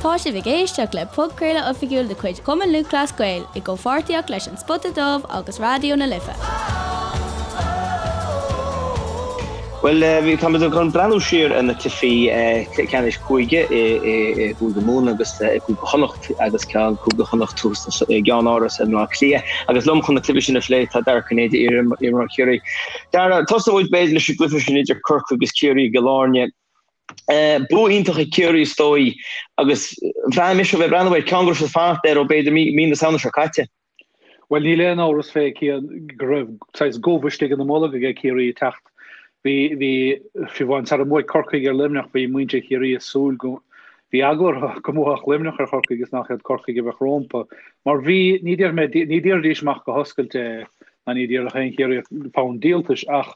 Tá sibh ag éisteacht le podchraoladh oifigiúil de chuid Chumann Lúthchleas Gael i gcomhpháirtíocht leis An Spota Dubh agus Raidió na Life. Bhuel, táimid chun breathnú siar ar na cluichí ceannais cúige i gCúige Mumhan agus i gCúige Chonnacht agus ceann Cúige Chonnacht thuas i gceannáras i mBleá Cliath. Agus liom chun na cluichí sin a phlé tá Dara Ó Cinnéide, iar-imreoir Chiarraí. Dara, tosóidh muid b'fhéidir leis an gcluiche sin idir Corcaigh agus Ciarraí i gCill Airne. Bua iontach ag Ciarraí is dóigh agus bhraith mise ó bheith ag breathnú air, ceann go raibh siad ag fanacht air ó b'fhéidir mí na Samhna seo caite. Bhuel, níl aon amhras fé Cian go raibh saghas gomh istigh ina mbolg aige Ciarraí ag teacht. Bhí, bhí, fiú amháin sara mbuaigh Corcaigh ar Luimneach bhí muintir Chiarraí ag súil go, bhí eagla orthu go mbuafadh Luimneach ar Chorcaigh is nach iad Corcaigh a bheadh rómpa. Mar bhí, ní déarfaidh mé, ní déarfaidís amach go hoscailte é, ná ní déarfadh aon Chiarraíoch fonn díoltais ach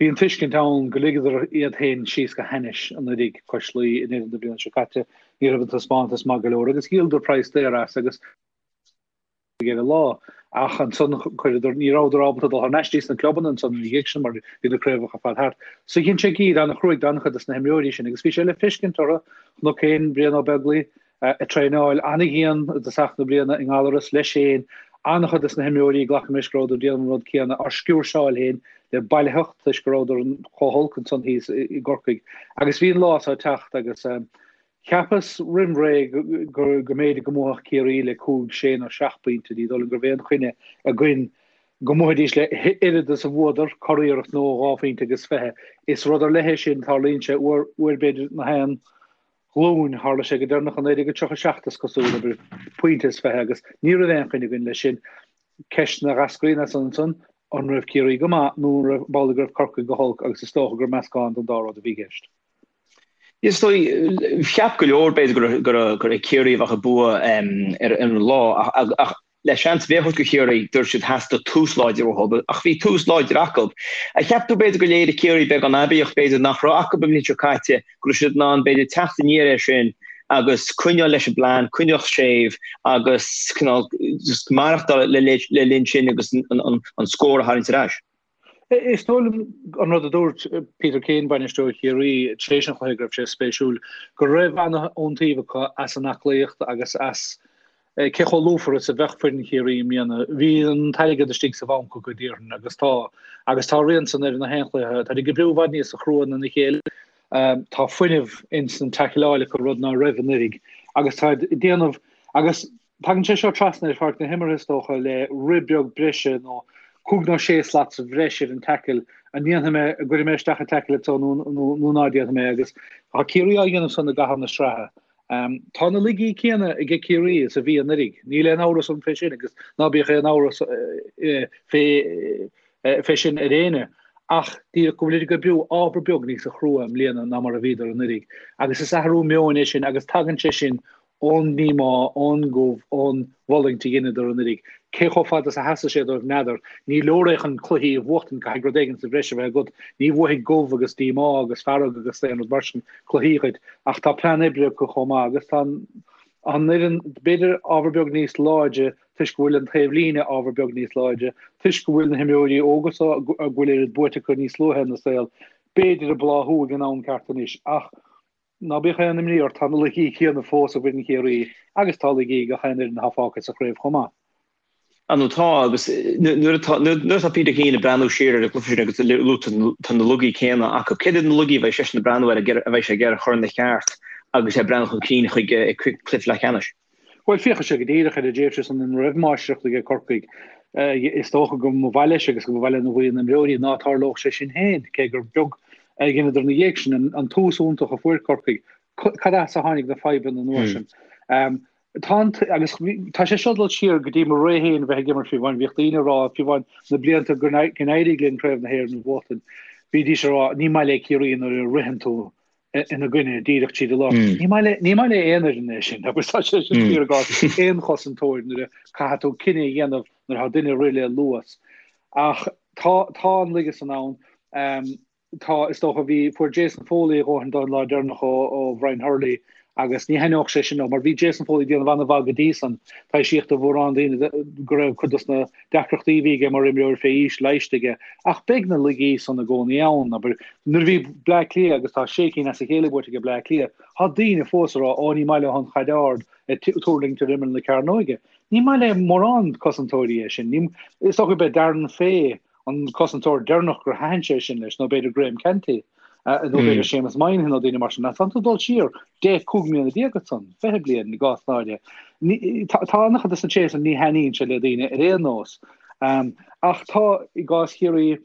bhí an tuiscint ann go ligeadar iad féin síos go hainnis anuraidh cois Laoi i ndeireadh na bliana seo caite. Ní raibh an taispeántas maith go leor agus dhíoladar praghas daor as agus, ar an lá. Ach ansan chuireadar, ní rabhadar ábalta dul thar n-ais dtí sna clubanna ansan ina dhiaidh sin mar bhí na craobhacha ar fad thart. So dhein sé giar an-chruaidh d'an-chuid des na himreoirí sin agus bhí sé le feiscint orthu. Chonac féin Brian Ó Beaglaoich ag traenáil an-dhian i dtosach na bliana i nGallaras leis féin. An-chuid des na himreoirí, glacaim leis go rabhadar ag déanamh an rud céanna, á sciúrseáil féin le bailitheacht toisc go rabhadar chomh holc ansan thíos i gCorcaigh. Agus bhí an lá so ag teacht agus Cheapas roimh ré go mb'fhéidir go mbuafadh Ciarraí le cúig, sé nó seacht bpointe. Ní dóigh liom go raibh aon choinne againn go mbuafaidís le oiread is a bhuadar, curiarracht nó dhá phointe agus fiche. Is rud ar leith é sin, tarlaíonn sé uair, uair b'fhéidir na haon ghlúin. Tharla sé go deireanach i 1937 is cosúil, abair, pointe is fiche agus ní raibh aon choinne againn leis sin. Ceisteanna a dh'eascraíonn as san ansan, an raibh Ciarraí go maith nó an raibh, b'amhlaidh go raibh Corcaigh go holc agus is dócha gur meascán den dá rud a bhí i gceist. Is dóigh, cheap go leor b'fhéidir go raibh Ciarraí a bheadh ag bua ar an lá ach le seans a bheith acu do Chiarraí, dúirt siad theastaigh tús láidir uathu ach bhí tús láidir acu. Ar cheap tú b'fhéidir gur léirigh Ciarraí beagán aibíocht b'fhéidir nach raibh acu an bhliain seo caite, go raibh siad in ann b'fhéidir teacht aniar air sin agus coinneáil leis an bplean, coinneáil séimh agus cineál just maireachtáil le linn sin agus an scór a tharraingt ar ais? Is dóigh liom an rud a dúirt Peter Keane, bainisteoir Chiarraí, tar éis an chluiche, go raibh sé spéisiúil go raibh an-iontaoibh acu as an aclaíocht agus as cé chomh lúfar is a bheadh foireann Chiarraí i mbliana. Bhí an t-airgead istigh sa bhanc acu, déarfainn, agus tá. Agus tá a rian san ar na haon chluiche. Táid ag oibriú i bhfad níosa chrua ná a chéile. Tá fuinneamh ins an taicleáil acu, rud ná raibh anuraidh. Agus táid ag déanamh agus Tagann sé seo trasna ar pháirc na himeartha, is dócha, le rith beag breise nó cúig nó sé slat sa bhreis ar an tackle. An ndéanfaidh mé, an gcuirfidh mé isteach an tackle anseo nó nó ná déanfaidh mé agus tá Ciarraí á dhéanamh san i gcaitheamh na sraithe. Tá na laigí céanna aige Ciarraí is a bhí anuraidh. Níl aon amhras orm fé sin agus ná bíodh aon amhras fé fé sin ar éinne ach díreach go bhfuilid ag oibriú ábhar beag níosa chrua i mbliana ná mar a bhíodar anuraidh. Agus is athrú meoin é sin agus tagann sé sin ón ndíomá, ón gcumha, ón bhfulaingt a dheineadar anuraidh. Cé chomh fada is a sheasfaidh sé dóibh n'fheadar. Ní leor é chun cluichí a bhuachtaint, caithfidh rud éigin sa bhreis a bheith agat. Ní bhuafaidh gomh agus díomá agus fearg agus aon rud mar sin cluichí dhuit. Ach tá plean oibre acu chomh maith agus tá an fhoireann b'fhéidir ábhar beag níos láidre toisc go bhfuil an taobh líne ábhar beag níos láidre, toisc go bhfuil na himreoirí óga so a bhfuil oiread buaite acu níos luaithe ina saol, b'fhéidir ag bláthú ag an am ceart anois. Ach. Ná bíodh aon imní ort, tá na laigí céanna fós i bhfoireann Chiarraí agus tá laigí ag gach aon fhoireann atá fágtha sa chraobh chomh maith. Á nó tá, agus nuair atá nuair atá Peter Keane ag breathnú siar ar an gcluiche sin agus luaigh tú tá na laigí céanna acu. Céard iad na laigí a bheidh seisean ag breathnú air a bheidh sé ag iarraidh a chur ina cheart agus é ag breathnú chun cinn chuig cluiche leathcheannais? Bhuel, féachfaidh sé go díreach ar an dtréimhse san ina raibh máistreacht aige Corcaigh. Is dócha go mba mhaith leis agus go mba mhaith lena bhuíon imreoirí ná tarlódh sé sin féin, cé gur beag a dheineadar ina dhiaidh sin, an tús iontach a fuair Corcaigh. Cad as a tháinig na fadhbanna an uair sin? Tá an, agus tá sé seo ag dul siar go dtí mo ré féin a bheith ag imirt fiú amháin, bhíodh daoine ag rá fiú amháin na blianta go n-éirigh linn Craobh na hÉireann a bhuachtaint, bhídís ag rá ní maith le Ciarraí nuair a ritheann tú ina gcoinne díreach tríd an lár. Ní maith le ní maith le aon fhoireann é sin agus tá sé sin fíor i gcás aon chosantóir nuair a caithfidh tú cinneadh a dhéanamh nuair atá duine ag rith le luas. Ach tá tá an laige san ann. Tá, is dócha, bhí, fuair Jason Foley a dhóthain don lá deireanach ó, ó Bhrian Hurley agus ní thaitneodh sé sin leo mar bhí Jason Foley ag déanamh an-mhaith go dtí san. Taibhsíodh do mhórán daoine go raibh cuid dos na deacrachtaí a bhí aige mar imreoir fé aois leighiste aige ach beidh na laigí san i gcónaí ann. Abair, nuair a bhí Bleá Cliath agus tá sé cinn as a chéile buaite ag Bleá Cliath, tá daoine fós ag rá, ó ní maith leo an chaid ard ag tuirlingt ar imeall na cearnóige. Ní maith le mórán cosantóirí é sin. Ní, is dócha gurb é Darren Fay an cosantóir deireanach gur thaitin sé sin leis, nó b'fhéidir Graham Canty, nó b'fhéidir Séamus Moynihan nó daoine mar sin. Ach tánn tú ag dul siar 10, 15 mbliana ansan, 20 bliain i gcás náire. Tá an-chuid de na tréithe san, ní thaitníonn sé le daoine ar aon nós. Ach tá, i gcás Chiarraí,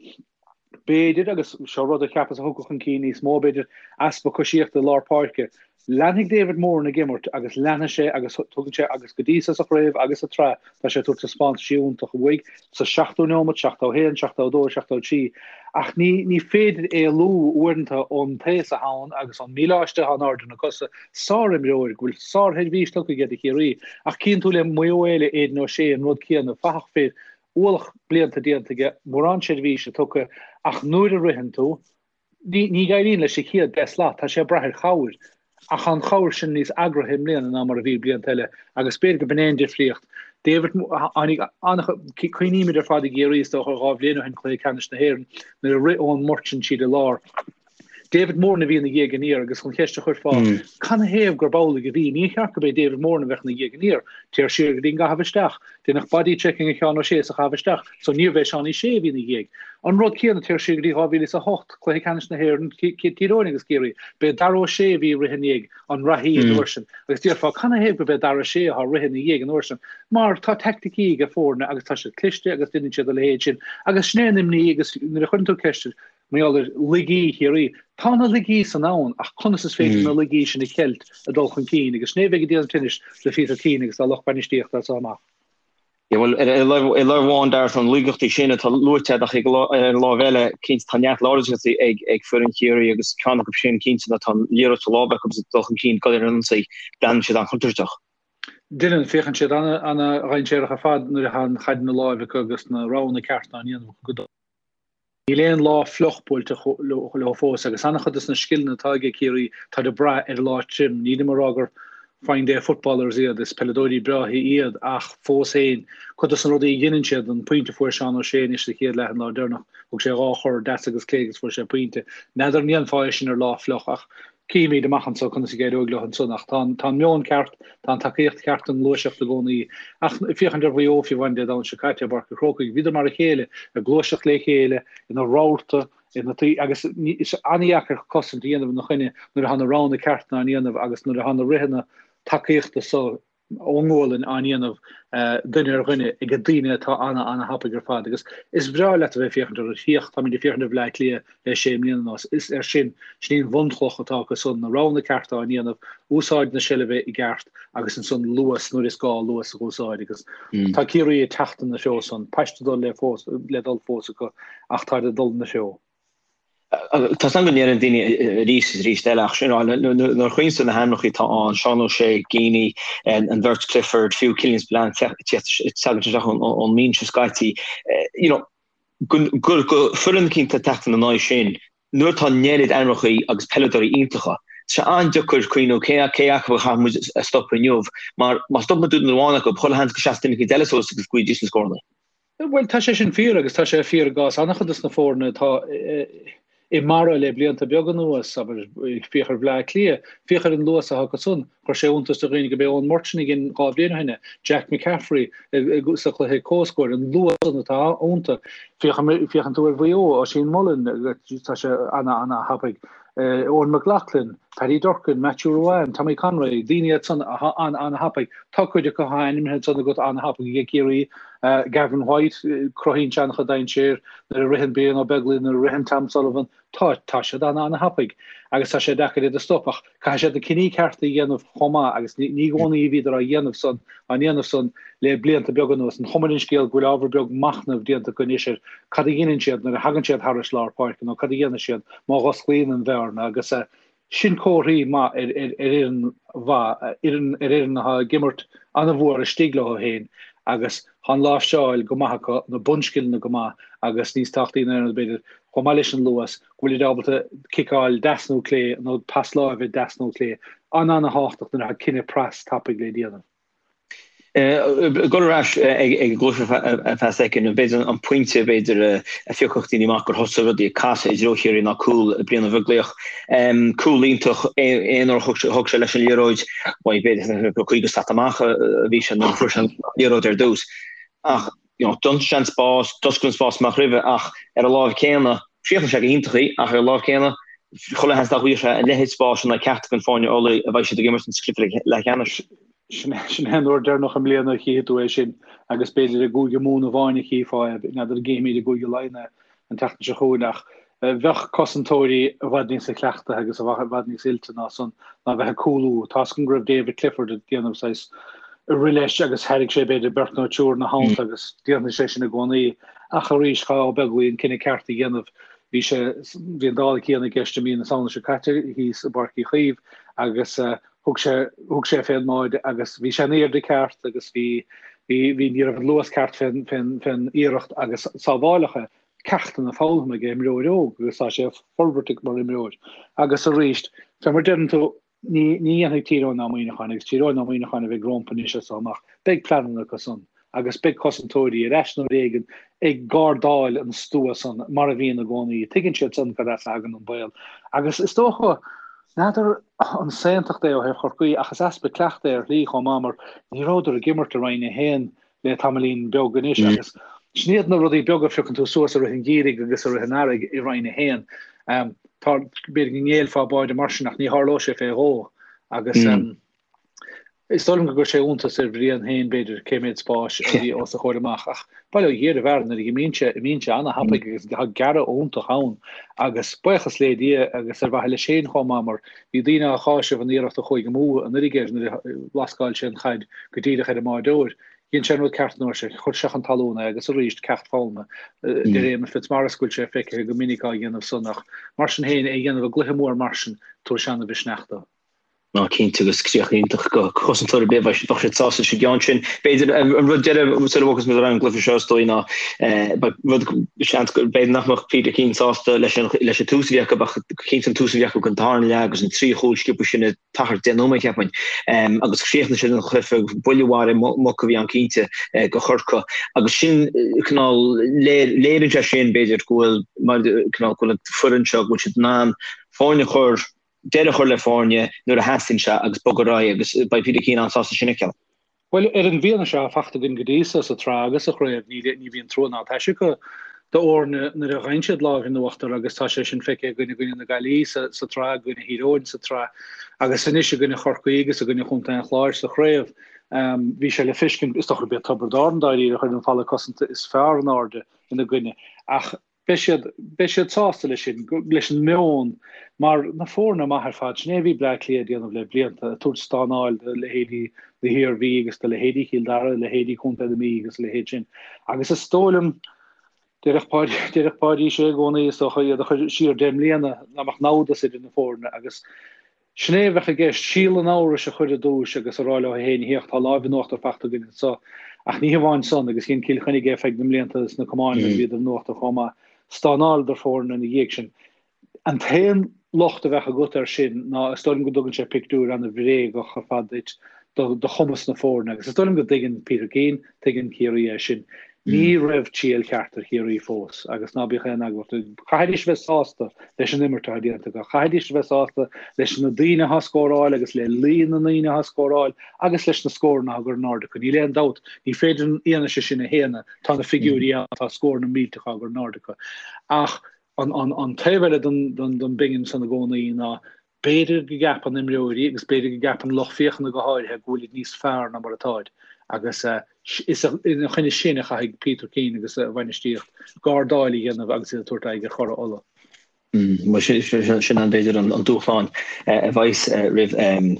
b'fhéidir, agus seo rud a cheapas a thiocfadh chun cinn níos mó, b'fhéidir, easpa coisíochta i lár páirce. Leanfaidh David Moran ag imirt agus leanfaidh sé agus tugann sé agus go dtí so sa chraobh agus sa tsraith tá sé ag tabhairt taispeántaisí iontach uaidh sa seachtú neomat, 71, 72, 73 ach ní ní féidir éalú uaireanta ón taos atá ann agus ón míleáiste atá in airde na cosa. Sárimreoir go bhfuil sársheirbhís tugtha aige do Chiarraí ach cíonn tú le Maigh Eo eile Aidan O'Shea an rud céanna, fathach fir, ualach blianta déanta aige, mórán seirbhíse tugtha ach nuair a ritheann tú, Ní éiríonn leis sa chéad 10 slat, tá sé ag brath ar chabhair, ach tá an chabhair sin níos eagraithe i mbliana ná mar a bhí blianta eile agus b'fhéidir go b'in é an difríocht. David, tháinig an-, cuimhnímid ar fad i gCiarraí is dócha 2 bhliain ó shin, Cluiche Ceannais na hÉireann, nuair a rith Eoin Murchan tríd an lár. David Moran a bhí ina dhiaidh aniar agus an cheist a chuirfeá, canathaobh gurb amhlaidh a bhí? Níor cheart gurb é David Moran a bheadh ina dhiaidh aniar. Téir siar go dtí an gcaitheamh isteach. Deineadh body checking ar Sheán O'Shea sa chaitheamh isteach, so níorbh é Seánie Shea a bhí ina dhiaidh. An rud céanna, téir siar go dtí 2008, Cluiche Ceannais na hÉireann, Tír Eoghain agus Ciarraí, b'é Dara O'Shea a bhí ag rith i ndiaidh an reathaí an uair sin. Agus déarfá, canathaobh gurb é Dara O'Shea atá ag rith ina dhiaidh an uair sin? Mar tá teaicticí ag foirne agus tá siad cliste agus deineann siad a leithéid sin. Agus sin é an imní agus nuair a chuireann tú ceist ar, Mar gheall ar laigí Chiarraí. Tá na laigí san ann ach conas is féidir na laigí sin a cheilt ag dul chun cinn agus sin é a bheidh ag déanamh tinnis le Peter Keane agus dá lucht bainistíochta as seo amach. Yeah, bhuel, ar láimh amháin, Dara, tá na laigeachtaí sin atá luaite agat ach ar an láimh eile, cinnte, tá neart láidreachtaí ag foireann Chiarraí agus ceann acu sin, cinnte, ná tá an liathróid sa lámh acu agus ag dul chun cinn, dul ar an ionsaí, breathnaíonn siad an-chontúirteach. Deineann, féachann siad an-dhainséarach ar fad nuair atá an chaid ina láimh acu agus na roghanna cearta á ndéanamh acu go Níl aon lá fliuch buailte leo fós agus an-chuid de na scileanna atá aige Ciarraí táid ag brath ar an lá tirim. Nílim ag rá gur fine day footballers iad, is peileadóirí breátha iad ach fós féin, cuid de na rudaí a dheineann siad, an pointe a fuair Seán O'Shea anois sa chéad leath an lá deireanach, thug sé 2 chor deas agus clé agus fuair sé pointe. N'fheadar an ndéanfá é sin ar lá fliuch ach Cífimid amach anso conas a d'éireoidh leo ansan ach tá an meon ceart, tá an tacaíocht cheart don ngluaiseacht i gcónaí. Ach féachaint ar Mhaigh Eo fiú amháin Dé Domhnaigh seo caite i bPáirc an Chrócaigh, bhíodar mar a chéile, ag gluaiseacht le chéile, ina rabharta, ina taobh, agus is an-dheacair cosaint a dhéanamh ina choinne nuair atá na roghanna cearta á ndéanamh agus nuair atá na ritheanna tacaíochta so ón ngualainn á ndéanamh duine ar dhuine ag daoine atá ana ana thapaidh ar fad agus is breá leat a bheith ag féachaint orthu. Féach, táimid ag féachaint ar Bhleá Cliath le sé mbliana anuas. Is ar sin, sin í an bhunchloch atá acu san, na roghanna cearta á ndéanamh, úsáid na seilbhe i gceart agus ansan luas nuair is gá luas a úsáid agus tá Ciarraí ag teacht ina threo san. Paiste dul le fós le dul fós acu ach táid ag dul ina threo. Tá 's agam go ndeireann daoine arís is arís eile ach sin nuair a chuimhníonn tú ar na hainmneacha atá ann, Seán O'Shea, Geaney, an bheirt Clifford, fiú Killian Spillane teacht isteach ón mbinse scaití, you know, go foireann eicínt ag teacht ina n-aghaidh sin, nuair atá an oiread ainmneacha agus peileadóirí iontacha, tá sé an-deacair cuimhniú cé acu a chaithfidh muid a stopadh inniu mar má stopann tú duine amháin acu, chuile sheans go seasfaidh duine eicínt eile suas agus go bhfaighidís na scóranna. Bhuel, tá sé sin fíor agus tá sé fíor i gcás an-chuid de na foirne atá i mbarra le blianta beaga anuas, abair, féach ar Bhleá Cliath, féach ar an luas atá acu san, chuir sé iontas do dhaoine gurb é Eoin Murchan a dhein 2 bhliain ó shin é, Jack McCaffrey sa chluiche comhscóir, an luas san atá iontu. Féachann tú ar Mhaigh Eo, Oisín Mullin, tá sé ana-ana-thapaidh. Eoghan McLaughlin, Paddy Durcan, Matthew Ruane, Tommy Conroy, daoine iad san atá an-an-thapaidh. Tá cuid acu atá ainmnithe ansan agat an-thapaidh ag Ciarraí. Gavin White, cruthaíonn sé an-chuid dainséir nuair a ritheann Brian Ó Beaglaoich, nuair a ritheann Tom Sullivan. Tá, tá siad an-an-thapaidh agus tá sé deacair iad a stop ach caithfidh siad na cinní cearta a dhéanamh chomh maith agus ní i gcónaí a bhíodar á dhéanamh san, á ndéanamh san le blianta beaga anuas. An chuma ar an scéal go bhfuil ábhar beag machnaimh déanta acu anois ar cad a dheineann siad nuair a thagann siad thairis lár páirce nó cad a dhéanfaidh siad má dh'osclaíonn an bhearna agus sin comharthaí maith ar fhoireann mhaith, ar fhoireann atá ag imirt an-mhór istigh leo féin agus tá an láimhseáil go maith acu, na bunscileanna go maith agus níos tábhachtaí ná aon rud b'fhéidir. Chomh maith leis an luas, go bhfuilid ábalta ciceáil deas nó clé nó pas láimhe deas nó clé. An-an-thábhachtach nuair atá cinneadh pras tapaidh le déanamh. Ag dul ar ais ag an gcluiche ar feadh soicind, b'fhéidir an pointe b'fhéidir a phiocfadh daoine amach gur thosaigh rudaí ag casadh i dtreo Chiarraí ná cúl Brian Ó Beaglaoich. Cúl iontach, aon uair a thug sé leis an liathróid, bhuel b'fhéidir gur 50 slat amach a bhí sé nuair a fuair sé an liathróid ar dtús. Ach you know, d'ionsaigh sé an spás, d'oscail an spás amach roimhe ach ar an lámh céanna, chríochnaigh sé go hiontach í, ach ar an lámh céanna, chuile sheans nach bhfuigheadh sé a leithéid spáis in aghaidh ceachtar den foirne Ulaidh a bheidh siad ag imirt sa chluiche leathcheannais. Sin é an uair deireanach i mbliana a chífidh tú é sin agus b'fhéidir i gCúige Mumhan amháin a chífeá é, n'fheadar an gcífimid i gCúige Laighean é an tseachtain seo chugainn ach bheadh cosantóirí i bhfad níosa cleachtaithe agus i bhfad níos oilte ná san ná bheith ag cúlú. Tá's agam go raibh David Clifford ag déanamh saghas rith leis agus thairg sé b'fhéidir beirt nó triúr ina theannta agus déanfaidh sé sin i gcónaí. Ach arís, chaithfeadh Ó Beaglaoich an cinneadh ceart a dhéanamh. Bhí sé, bhí an dála céanna i gceist i mí na Samhna seo caite thíos i bPáirc Uí Chaoimh agus thug sé, thug sé fén mbáide agus bhí sé in airde ceart agus bhí, bhí, bhí, ní raibh an luas ceart fén, fén, fén iarracht agus sábháileadh é. Ceachtanna foghlamtha ag imreoir óg agus tá sé ag forbairt mar imreoir. Agus arís, fé mar deireann tú, ní ní dhéanfaidh Tír Eoghain ná Muineachán agus Tír Eoghain ná Muineachán a bheidh rompu anois as so amach, beidh pleananna acu san agus beidh cosantóirí ar ais nó éigin ag gardáil an stua san mar a bhíonn i gcónaí. Tuigeann siad san cad as a thagann an baol. Agus is dócha, n'fheadar an saontacht é ó thaobh Chorcaí ach is easpa cleachtaidh é ar shlí chomh maith mar ní rabhadar ag imirt i Roinn 1 le tamaillín beag anois agus sin iad na rudaí beaga a phiocann tú suas i rith an gheimhridh agus i rith an earraigh i Roinn 1. Tá, b'fhéidir go ngéillfeá báide mar sin ach ní tharlódh sé fé dhó agus is dóigh liom go gcuir sé iontas ar Bhrian féin b'fhéidir cé méad spáis a bhí os a chomhair amach ach bail ó Dhia ar an bhfear nuair a imíonn sé, imíonn sé ana-thapaidh agus tá gearradh iontach ann agus buíochas le Dia agus ar mhaithe leis féin chomh maith mar Bhí daoine á cháiseamh an iarracht a chuaigh amú anuraidh air nuair a lascáil sé an chaid go díreach ar an mbáireoir. Dhein sé an rud ceart an uair sin, chuir sé chun talún é agus arís, ceacht foghlamtha. Deir Éamonn Fitzmaurice go bhfuil sé feicthe go minic á dhéanamh san ach mar sin féin, é a dhéanamh i gcluiche mór mar sin, tabharfaidh sé ana-mhisneach dó. Ná cinnte agus críoch iontach do chosantóir ar bith, bheadh siad sásta leis an gceann sin. B'fhéidir an rud deiridh sula bhfágfas muid ar an gcluiche seo is dóigh ná rud seans go b'fhéidir nach mbeadh Peter Keane sásta leis an leis an tús a bhí acu ach cinnte an tús a bhí acu don tarna leath agus an trí chúl sciobtha sin i t-achar 10 nóiméad cheapfainn. Agus chríochnaigh siad an cluiche buille mharaithe muc a bhí ann cinnte do Chorcaigh agus sin cineál léiríonn sé sin b'fhéidir go bhfuil mar cineál go bhfuil an foireann seo go bhfuil siad in ann foirne a chur deireadh a chur le foirne nuair a theastaíonn sé agus bogadh ar aghaidh agus beidh Peter Keane an-sásta sin a fheiceáil. Bhuel, ar an bhfianaise atá fachta againn go dtí so sa tsraith agus sa chraobh, ní ní bhíonn trua ná taise acu d'fhoirne nuair a fhaigheann siad lámh in uachtar agus tá sé sin feicthe againn i gcoinne na Gaillimhe sa sa tsraith, i gcoinne Thír Eoghain sa tsraith agus anois i gcoinne Chorcaí agus i gcoinne Chontae an Chláir sa chraobh. Bhí sé le feiscint, is dócha gurb é Tiobraid Árann dáiríre a chuir an falla cosanta is fearr in airde ina gcoinne ach Beidh siad, beidh siad sásta leis sin, leis an meon, mar na foirne maith ar fad, sin é a bhí Bleá Cliath ag déanamh le blianta, ag tabhairt stánáil do leithéidí na hIarmhí agus do leithéidí Chill Dara, leithéidí Chontae na Mí agus a leithéid sin. Agus is dóigh liom, déarfadh Páidí, déarfadh Páidí Sé i gcónaí, is dócha, iad a chur siar 10 mbliana, nach mbeadh namhdas idir na foirne agus, Sin é a bheadh i gceist, síol an amhrais a chur i dtús agus a rá leo féin, Féach, tá láimh in uachtar fachta againn anso. Ach ní hamháin san, agus dhein Cill Chainnigh é feadh na mblianta sna camáin nuair a bhíodar in uachtar chomh maith, stánáileadar foirne ina dhiaidh sin. An t-aon locht a bheadh agat air sin ná is dóigh liom go dtugann sé pictiúr an-bhréagach ar fad duit de chumas na foirne agus is dóigh liom go dtuigeann Peter Keane, Tuigeann Ciarraí é sin. Ní raibh triail cheart ar Chiarraí fós agus ná bíodh aon eagla orthu. Chaithfidís a bheith sásta leis an imirt atá déanta acu. Chaithfidís a bheith sásta leis na daoine atá ag scóráil agus le líon na ndaoine atá ag scóráil agus leis na scóranna atá á gcur in airde acu. Níl aon dabht, ní féidir an fhianaise sin a shéanadh, tá na figiúirí ann, tá scóranna millteacha á gcur in airde acu. Ach an taobh eile den bpingin san i gcónaí ná B'fhéidir go gceapann imreoirí agus b'fhéidir go gceapann lucht féachana go háirithe go bhfuilid níos fearr ná mar atáid agus is ina choinne sin a chaithfidh Peter Keane agus a bhainistíocht gardáil a dhéanamh agus iad ag tabhairt aghaidh ar churaidh Uladh. Bhuel, sin an b'fhéidir an dúshlán a bheas roimh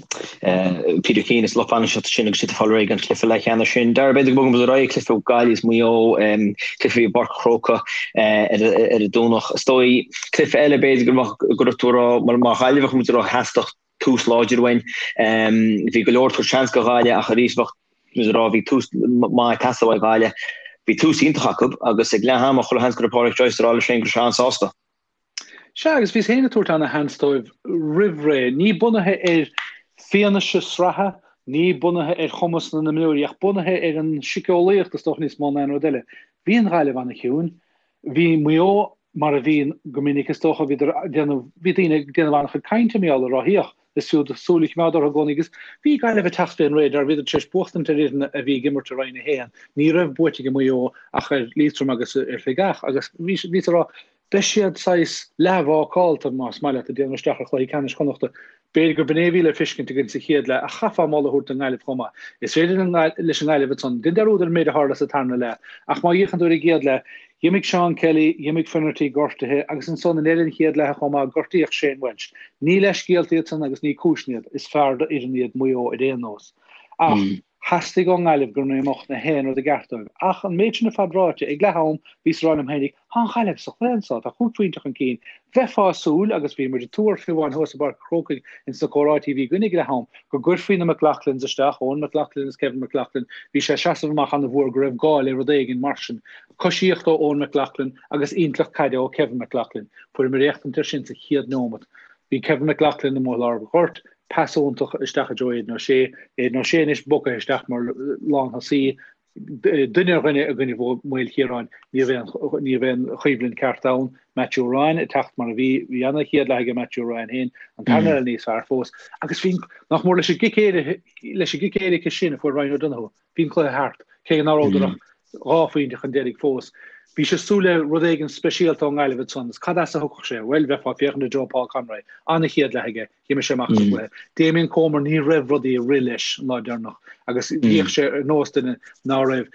Peter Keane is lucht bainistíochta sin agus iad ag fáil réidh don chluiche leathcheannais sin. Dara, b'fhéidir go mbogfaidh muid ar aghaidh, cluiche Gaillimh is Maigh Eo, cluiche i bPáirc an Chrócaigh ar an Domhnach. Is dóigh Cluiche eile b'fhéidir go mbeadh go raibh tú a rá mar mar Ghaillimheach muid a rá theastódh tús láidir uainn. Bhí go leor ag tabhairt seans do Ghaillimh ach arís bheadh muid a rá bhí tús maith ag teastáil ó Ghaillimh. Bhí tús iontach acu agus ag leath ama chuile sheans go raibh Pádraic Joyce a rá leis féin go raibh sé an-sásta. Sea, agus bhíos féin ag tabhairt ana-sheans dóibh roimh ré, ní bunaithe ar fianaise sraithe, ní bunaithe ar chumas na n-imreoirí, ach bunaithe ar an síceolaíocht is dócha níos mó ná aon rud eile. Bhí an Ghaillimh ana-chiúin. Bhí Maigh Eo mar a bhíonn go minic is dócha, bhíodar ag déanamh, bhí daoine ag déanamh an-chuid cainte mar gheall ar ráthaíocht. Is fiú súil a choimeád orthu i gcónaí agus bhí Gaillimh ag teacht fén radar, bhíodar tar éis buachtaint ar fhoireann a bhí ag imirt i Roinn 1. Ní raibh buaite ag Maigh Eo ach ar Liatroim agus ar Shligeach agus bhíos ag rá, beidh siad saghas leathbhácálta, más maith leat, ag déanamh isteach ar chluiche ceannais Chonnachta. B'fhéidir gur b'in é a bhí le feiscint againn sa chéad leath ach chaithfeá moladh a thabhairt don nGaillimh chomh maith. Is féidir leis an nGaillimh ansan, déan dearúd ar an méid a tharla sa tarna leath ach má fhéachann tú ar an gcéad leath, D'imigh Seán Kelly, d'imigh Finnerty, gortaithe, agus ansan i ndeireadh an chéad leatha chomh maith, gortaíodh Shane Walsh. Ní leithscéalta iad san agus ní cúiseanna iad, is fearr d'fhoireann iad Maigh Eo ar aon nós. Ach theastaigh ón nGaillimh go mbeadh na haon rud i gceart dóibh. Ach an méid sin ar fad ráite, ag leath am, bhíos ag rá liom fhéinig, Tá an Ghaillimh sa chluiche anso, tá chúig phointe chun cinn. Bheifeá ag súil, agus bhí muid ag tuar fiú amháin thuas i bPáirc an Chrócaigh ins na comhráití a bhí againn ag leath am, go gcuirfí na McLaughlins isteach, Eoghan McLaughlin agus Kevin McLaughlin, bhí sé ag seasamh amach an-mhór go raibh gá le rud éigin mar sin. Coisíocht ó Eoghan McLaughlin agus intleacht caide ó Kevin McLaughlin. Fuaireamar éachtaint air sin sa chéad neomat. Bhí Kevin McLaughlin amuigh i lár an ghoirt, pas iontach isteach i dtreo Aidan O'Shea. Aidan O'Shea anois bogtha isteach mar lánthosaí. Duine ar dhuine i gcoinne Mhaoilchiaráin, ní raibh aon ní raibh aon choimhlint ceart ann. Matthew Ryan ag teacht mar a bhí. Bhí ana chéad leath aige Matthew Ryan féin, an tarna leath níos fearr fós. Agus bhí, nach mór leis an gcic éirice, leis an gcic éirice sin a fuair Ryan O'Donoghue, Bhí an cluiche thart, cé nach rabhadar ach 2 phointe chun deiridh fós. Bhís ag súil le rud éigin speisialta ón nGaillimh ansan, is cad as a thiocfadh sé? Bhuel, bheifeá ag féachaint i dtreo Paul Conroy. An-chéad leath aige, d'imigh sé amach as an gcluiche. Damien Comer, ní raibh rudaí ag rith leis an lá deireanach agus bhíodh sé ar nós duine ná raibh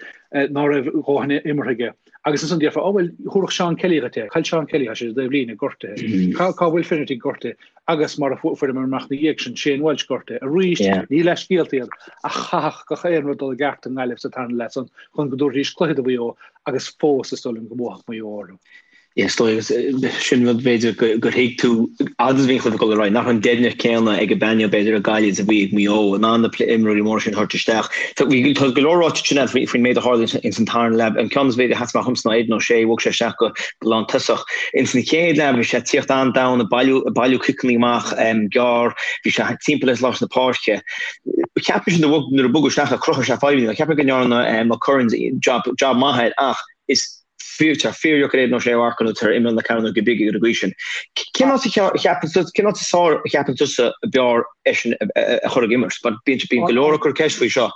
ná raibh a dhóthain imeartha aige. Agus ansan déarfá, oh bhuel, thabharfadh Seán Kelly dhuit é. Cá bhfuil Seán Kelly, tá sé i dtaobh líne, gortaithe. Cá bhfuil Finnerty gortaithe? Agus mar a fuaireamar amach ina dhiaidh sin, Shane Walsh gortaithe. Arís, ní leithscéalta iad, ach chaithfeadh gach aon rud dul i gceart i nGaillimh sa tarna leath san chun go dtabharfaidís cluiche do Mhaigh Eo agus fós is dóigh liom go mbuafadh Maigh Eo orthu. Yeah, is dóigh, agus sin rud b'fhéidir gur thuig tú fhad is a bhí an cluiche ag dul ar aghaidh, nach raibh an deimhneacht céanna ag an bpainéal b'fhéidir i Gaillimh is a bhí ag Maigh Eo in ann na imreoirí móra sin a thabhairt isteach. Tá go leor ráite ansin agat faoin méid a tharla ins an tarna leath. An ceann is b'fhéidir a sheas amach dhomsa ná Aidan O'Shea, bhog sé isteach go lántosach. Ins an chéad leath bhí sé ag tíocht an-domhain, ag bailiú, ag bailiú ciceanna amach gearr, bhí sé timpeall ar lár na páirce. Cheap mise nuair a bogadh isteach é, chruthaigh sé fadhbanna. Cheap mé go ndearna McCurran job, job maith air ach is fíor, tá fíordheacair Aidan O'Shea a mharcadh nuair atá ar imeall na cearnóige bige ar an gcaoi sin. Cén áit a cheapann tú, cén áit is fearr a cheapann tusa ab fhearr eisean a chur ag imirt? Mar bíonn, bíonn go leor ag cur ceist faoi seo.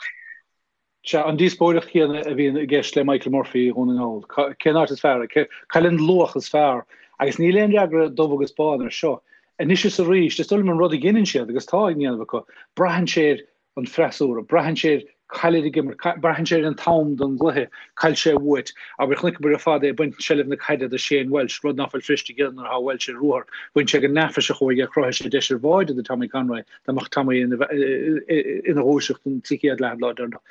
Sea, an díospóireacht chéanna a bhíonn i gceist le Michael Murphy i Dhún na nGall. Cén áit is fearr? Cá bhfuil an luach is fearr? Agus níl aon fhreagra dubh agus bán ar seo. Anois is arís, is dóigh liom an rud a dheineann siad, agus tá á dhéanamh acu, braitheann sé ar an freasúra, braitheann sé ar cá bhfuilid ag imirt, braitheann sé ar an t-am don gcluiche, cá bhfuil sé uait. Abair, chonaiceamar ar fad é ag baint seilbh na caide de Shane Walsh, rud ná fuil Frist ag déanamh nuair atá Walsh ar ruathar. Bhain sé go neafaiseach uaidh é, chruthaigh sé deis ar bháide do Tommy Conroy. Dá mbeadh Tommy ina dhúiseacht sa chéad leath an lá deireanach.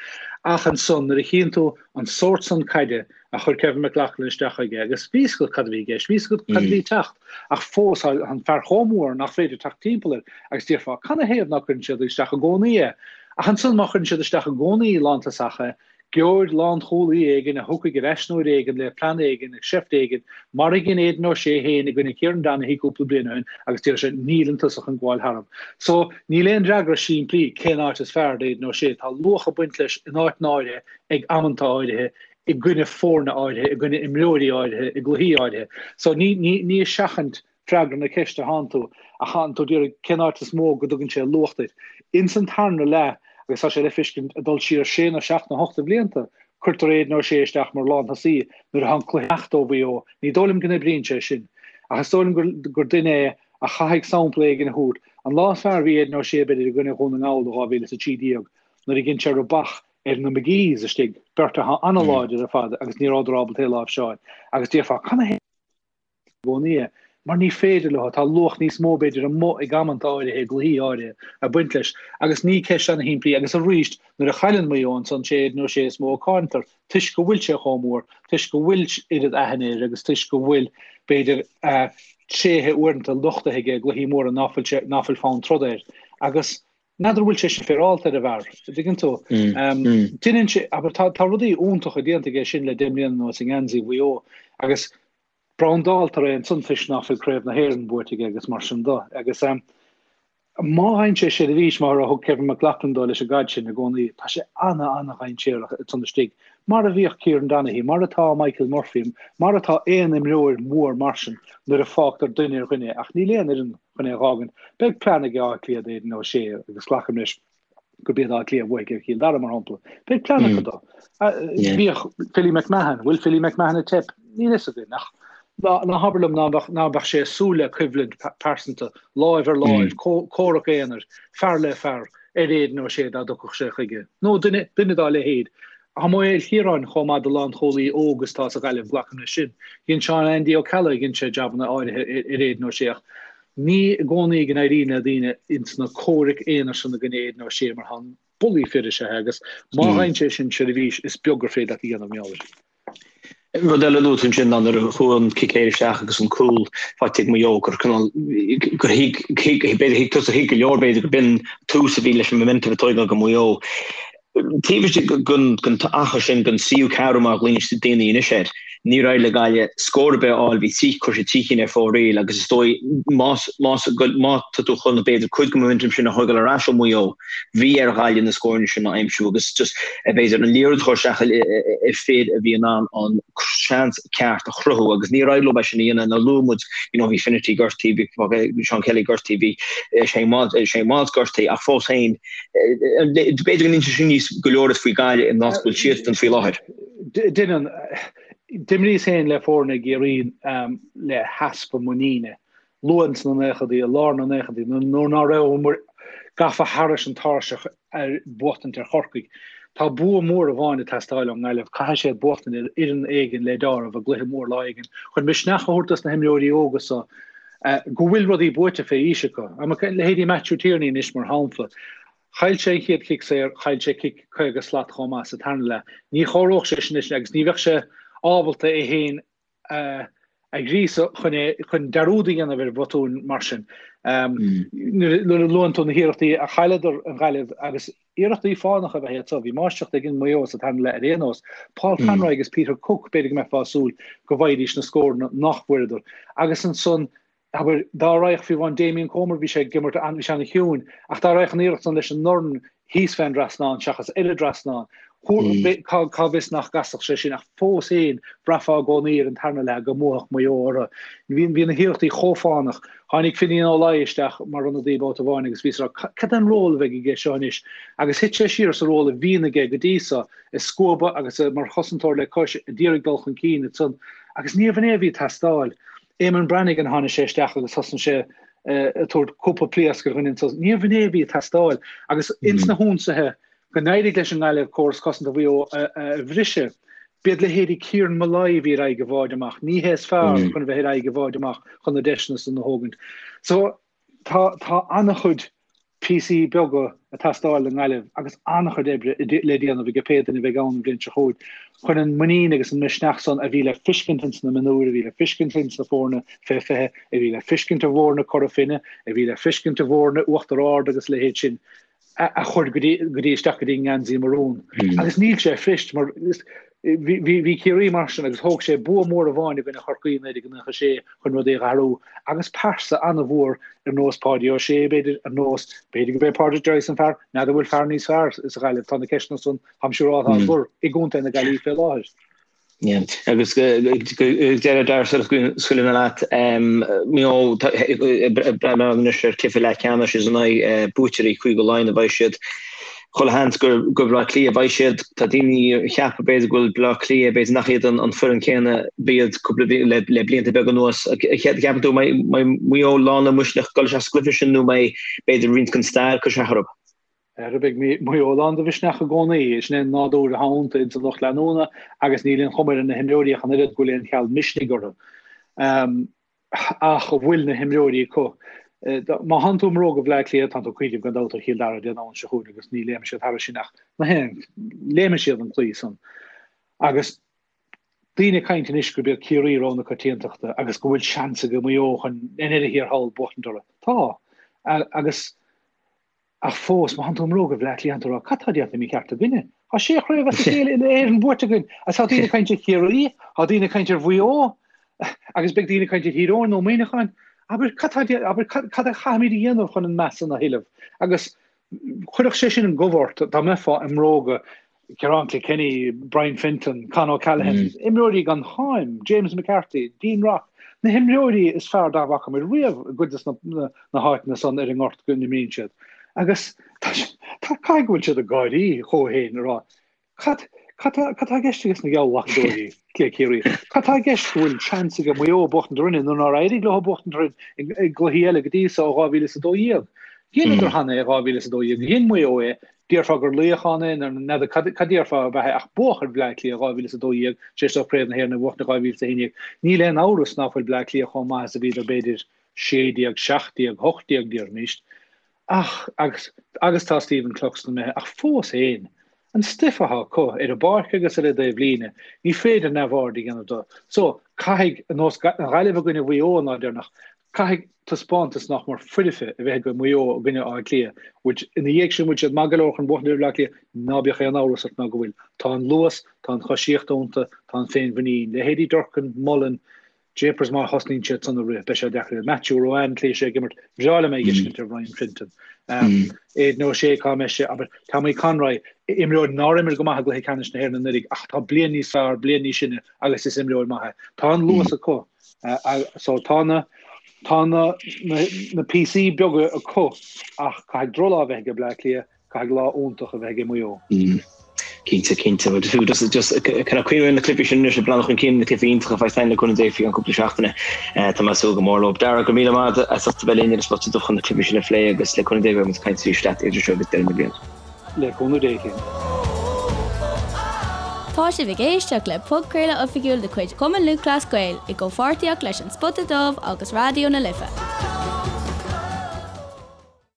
Ach ansan, nuair a chíonn tú an sórt san caide a chuir Kevin McLaughlin isteach chuige, agus bhí 'fhios agat cad a bhí i gceist, bhí 'fhios agat cad a bhí ag teacht, ach fós tá an fear chomh mór nach féidir teacht timpeall air, agus déarfá, canathaobh ná cuireann siad isteach i gcónaí é? Ach ansan, má chuireann siad isteach i gcónaí lántosach é, Gheobhair lánchúlaí éigin a thiocfaidh ar ais uair éigin le plean éigin, seift éigin, mar a dhein Aidan O'Shea féin i gcoinne Kieran Donaghy cúpla bliain ó shin agus déarfaidh sé 'níl an tosach chun gabháil tharam'. So, níl aon fhreagra simplí cén áit is fearr d'Aidan O'Shea. Tá luach ag baint leis in áiteanna áirithe ag amanta áirithe, i gcoinne foirne áirithe, i gcoinne imreoirí áirithe, i gcluichí áirithe. So, ní, ní, ní ag seachaint freagra na ceiste atánn tú, ach tánn tú ag iarraidh cén áit is mó go dtugann sé luach duit. Ins an tarna leath, agus tá sé le feiscint ag dul siar sé nó seacht nó hocht de bhlianta, cuirtear Aidan O'Shea isteach mar lánthosaí nuair atá an cluiche ag imeacht ó Mhaigh Eo. Ní dóigh liom go n-oibríonn sé sin. Ach is dóigh liom gur, gur duine é a chaithfidh sampla éigin a thabhairt. An lá is fearr a bhí Aidan O'Shea b'fhéidir i gcoinne Dhún na nGall i 2013 nuair a dhein sé rubach ar na McGees istigh, beirt atá an-láidir ar fad agus ní rabhadar ábalta é a láimhseáil. Agus déarfá, canathaobh? i gcónaí é, mar ní féidir leo, tá luach níos mó b'fhéidir amuigh ag amanta áirithe, i gcluichí áirithe, ag baint leis. Agus ní ceist ana-shimplí, agus arís, nuair a chailleann Maigh Eo ansan, sé Aidan O'Shea is mó a cáintear, toisc go bhfuil sé chomh mór, toisc go bhfuil oiread aithne air agus toisc go bhfuil, b'fhéidir, a thréithe uaireanta nochtaithe aige i gcluichí móra ná fuil sé, ná fuil fonn troda air. Agus n'fheadar an bhfuil sé sin féaráilte ar an bhfear, an dtuigeann tú? Deineann sé, abair, tá, tá rudaí iontacha déanta aige sin le deich mbliana anuas i ngeansaí Mhaigh Eo agus. Brandáltar é ansan toisc ná fuil Craobh na hÉireann buaite aige agus mar sin de. Agus má fhaigheann sé seirbhís mar a thug Kevin McLoughlin dó leis an gcaid sin i gcónaí, tá sé ana-ana-dhainséarach ansan istigh, mar a bhíodh Kieran Donaghy, mar atá Michael Murphy, mar atá aon imreoir mór mar sin nuair a fágtar duine ar dhuine, ach níl aon fhoireann chun é a dh'fhágaint. Beidh plean ag Áth Cliath d'Aidan O'Shea agus glacaim leis gurb iad Áth Cliath a bhuafaidh ar Chill Dara, mar shampla. Beidh plean acu dó. Bhíodh Philly McMahon, bhfuil Philly McMahon ag teip? Níl fhios againn, ach ná habair liom ná beadh sé ag súil le coimhlint pearsanta, láimh ar láimh, comhrac aonair, fear le fear, ar Aidan O'Shea dá dtiocfadh sé chuige. Nó duine, duine dá leithéid. Tá Maigh Chiaráin chomh maith do lánchúlaí óg is atá sa Ghaillimh, glacaim leis sin. Dhein Seán Andy Ó Ceallaigh, dhein sé jabanna áirithe ar Aidan O'Shea ach Ní i gcónaí go n-éiríonn le daoine ins na comhraic aonair san i gcoinne Aidan O'Shea mar tá bullaí fir is ea é agus má fhaigheann sé sin seirbhís is beag gur féidir leat a dhéanamh mar gheall air. Rud eile a luaigh tú ansin ná nuair a chuaigh an cic saor isteach agus an cúl faighte ag Maigh Eo gur cineál gur thuig b'fhéidir thuig tusa thuig go leor b'fhéidir go b'in tús a bhí leis an momentum a tógáil go Maigh Eo. Taobh istigh den achar sin, den tríú ceathrú mar a ghlaonn daoine anois air, níor éirigh le Gaillimh scór ar bith a fháil, bhí trí, chuir siad 3 cinn ar fóraoil agus is dóigh más, más, má tá tú chun b'fhéidir cuid den momentum sin a thógáil ar ais ó Mhaigh Eo, bhí ar Ghaillimh na scóranna sin a aimsiú agus just b'fhéidir an liathróid a chur isteach i fir a bhí in ann an seans ceart a chruthú agus níor éirigh leo é sin a dhéanamh. Nuair a luaigh muid, you know, bhí Finnerty gortaithe, bhí Seán Kelly gortaithe, bhí Shane Walsh, Shane Walsh gortaithe ach fós féin, B'fhéidir go n-inseoidh sin níos go leor duit faoi Ghaillimh in áit go bhfuil siadsan faoi láthair. Deineann. D'imríos féin le foirne i gCiarraí le heaspa muiníne. Luath ins na naochadaí, i lár na naochadaí, nuair ná rabhamar gafa thairis an tairseach ar buachtaint ar Chorcaigh. Tá bua mór amháin ag teastáil ón nGaillimh. Caithfidh siad buachtaint ar fhoireann éigin le deáramh i gcluiche mór lá éigin chun misneach a thabhairt dos na himreoirí óga so go bhfuil rudaí buaite fé aois acu. Leithéidí Matthew Tierney anois mar shampla. Chaill sé an chéad chic saor, chaill sé cic 50 slat chomh maith sa tarna leath. Ní chomhaireodh sé sin anois agus ní bheadh sé ábalta é féin a ghríosadh chun é chun dearúd a dhéanamh ar bhotúin mar sin. Nuair a luann tú na hiarrachtaí a chailleadar an Ghaillimh agus Iarrachtaí fánacha ab ea iad so. Bhí máistreacht ag Maigh Eo sa tarna leath ar aon nós. Paul Conroy agus Peter Cooke, b'fhéidir go mbeifeá ag súil go bhfaighidís na scóranna nach bhfuaireadar. Agus ansan, abair, dá raghadh fiú amháin Damien Comer, bhí sé ag imirt, bhí sé ana-chiúin, ach dá raghadh an iarracht san leis an ndorn thíos fén dtrasnán seachas ar an dtrasnán, cá bhfios nach gcasfadh sé sin, ach fós féin, bhraithfeá i gcónaí ar an tarna leath go mbuafadh Maigh Eo orthu. Bhí na hiarrachtaí chomh fánach. Tháinig Finian Ó Laoi isteach mar ionadaí babhta amháin agus bhíos ag rá, cad é an ról a bheidh aige seo anois? Agus thit sé siar sa ról a bhíonn aige go dtí so, ag scuabadh agus mar chosantóir le cois, a d'iarraidh dul chun cinn ansan. Agus níorbh in é a bhí ag teastáil. Eamonn Brannigan, tháinig sé isteach agus thosnaigh sé ag tabhairt cúpla pléasc ar dhuine ansan. Níorbh in é a bhí ag teastáil. Agus ins na hionsaithe, go n-éirigh leis an nGaillimh córas cosanta Mhaigh Eo a bhriseadh. B'iad leithéidí Kieran Molloy a bhí ar aghaidh i bhfad amach. Ní hé is fearr chun a bheith ar aghaidh i bhfad amach chun na deiseanna san a thógaint. So tá tá an-chuid píosaí beaga ag teastáil don nGaillimh agus an-chuid oibre le déanamh ag pé duine a bheidh ann an bhliain seo chugainn chun an muinín agus an misneach san a bhí le fiscint ins na mionúir, a bhí le fiscint ins na foirne fé 20, a bhí le fiscint i bhfoirne Cora Finne, a bhí le fiscint i bhfoirne Uachtar Ard agus a leithéid sin. a chur go dtí go dtí isteach go dtí an ngeansaí marún. Agus níl sé fuirist mar bhí bhí Ciarraí mar sin agus thóg sé bua mór amháin i gcoinne Chorcaí i 1996 chun rudaí a athrú agus pearsa an-mhór ar nós Páidí Ó Sé b'fhéidir ar nós b'fhéidir go b'é Pádraic Joyce an fear n'fheadar bhfuil fear níos fearr sa Ghaillimh tá na ceisteanna san táim siúráilte á gcur i gContae na Gaillimhe fé láthair. Agus deireadh dar scaoileann leat, Maigh Eo breathnú anois ar chluiche leathcheannais is in aghaidh buaiteoirí Chúige Laighean a bheidh siad. Chuile sheans gur Baile Átha Cliath a bheidh siad. Tá daoine ag ceapadh b'fhéidir go bhfuil Baile Átha Cliath, b'fhéidir nach iad an foireann céanna b'iad cúpla le blianta beaga anuas. Ceapann tú mbeidh Maigh Eo lán le misneach dul isteach sa gcluiche sin nó mbeidh b'fhéidir roinnt den stair ag cur isteach orthu? Ara beidh Maigh Eo lán de mhisneach i gcónaí. Sin é an nádúr atá iontu ins an lucht leanúna agus níl aon chuma ar na himreoirí ach an oiread go bhfuil aon cheal misnigh orthu. Ach an bhfuil na himreoirí acu? Má thánn tú i mbróga Bhaile Átha Cliath, tánn tú ag cuimhneamh gan dabht ar Chill Dara Dé Domhnaigh seo chugainn agus ní léimfidh siad thairis sin ach na haon, léimfidh siad an claí san. Agus daoine ag caint anois gurb iad Ciarraí rogha na coitiantachta agus go bhfuil seans ag Maigh Eo chun i ndeireadh thiar thall buachtaint orthu. Tá. Agus. Ach fós, má thánn tú i mbróga Bhaile Átha Cliath, tánn tú ag rá, cad tá déanta mícheart againne? Tá sé chraobh as a chéile uile-Éireann buaite againn, agus tá daoine ag caint ar Chiarraí, tá daoine ag caint ar Mhaigh Eo. Agus beidh daoine ag caint ar Thír Eoghain nó Muineachán, abair, cad tá, abair, cad a chaithfimid a dhéanamh chun an meas san a thuilleamh? Agus chuirfeadh sé sin an gomh ort dá mbeifeá i mbróga Ciarán Kilkenny, Brian Fenton, Con O'Callaghan, imreoirí gan cháim, James McCarthy, Dean Rock, na himreoirí is fearr dá bhfaca muid riamh i gcuid de na háiteanna san ar an ngort go n-imríonn siad. Agus tá, caithfidh go bhfuil siad ag gáirí chucu féin ag rá, Cad, cad tá, cad tá i gceist ages na geallghlacadóirí, le Ciarraí? Cad tá i gceist go bhfuil seans ag Maigh Eo buachtaint orainne nuair nár éirigh leo buachtaint orainn i gcluichí eile go dtí so ó 2012? Dheineadar cheana é 2012, dhein Maigh Eo é, déarfá gur laoch ann é, nó n'fheadar cad, cad déarfá ab ea é, ach buadh ar Bhleá Cliath 2012, tar éis dóibh Craobh na hÉireann a bhuachtaint i 2011. Níl aon amhras ná fuil Bleá Cliath chomh maith is a bhíodar b'fhéidir 16, 17, 18 déarfaimis. Ach, agus, agus tá Stephen Cluxton imithe, ach fós fhéin, an stuif atá acu, ar an bpáirc agus ar an dtaobh líne, ní féidir neamhaird a dhéanamh de. So, caithfidh, ar nós an Ghaillimh i gcoinne Mhaigh Eo an lá deireanach, caithfidh taispeántas nach mór foirfe a bheith ag Maigh Eo i gcoinne Átha Cliath, which, ina dhiaidh sin, bhfuil siad maith go leor chun buachaint ar Bhleá Cliath? Ná bíodh aon amhras ort ná go bhfuil. Tá an luas, tá an choisíocht iontu, tá an féinmhuinín. Leithéidí Durcan, Mullen, Japers má thosnaíonn siad san ag rith, beidh sé deacair. Matthew Ruane, tslí sé ag imirt, bhreá liom é a fheiscint ar Ryan Fenton. Aidan O'Shea cá mbeidh sé, abair, Tommy Conroy, imreoir nár imir go maith i gcluiche ceannais na hÉireann anuraidh ach tá bliain níos fearr, bliain níos sine agus is imreoir maith é. Tá an luas acu. So tá na tá na na píosaí beaga acu ach caithfidh drochlá a bheith ag Bleá Cliath Caithfidh lá iontach a bheith ag Maigh Eo. Cinnte, cinnte. Bhuel, fiú just, just kind of cuimhneamh ar na cluichí sin anois ag breathnú chun cinn, na cluichí iontacha a bheas againn le cúnamh Dé faoi cheann cúpla seachtaine. Tá mé ag súil go mór leo. Dara, go raibh míle maith agat as ucht a bheith linn ar an Spota Dubh chun na cluichí sin a phlé agus le cúnamh Dé beidh muid ag caint arís leat idir seo agus deireadh na bliana. Le cúnamh Dé, Cian. Tá sibh ag éisteacht le podchraoladh oifigiúil de chuid Chumann Lúthchleas Gael i gcomhpháirtíocht leis An Spota Dubh agus Raidió na Life.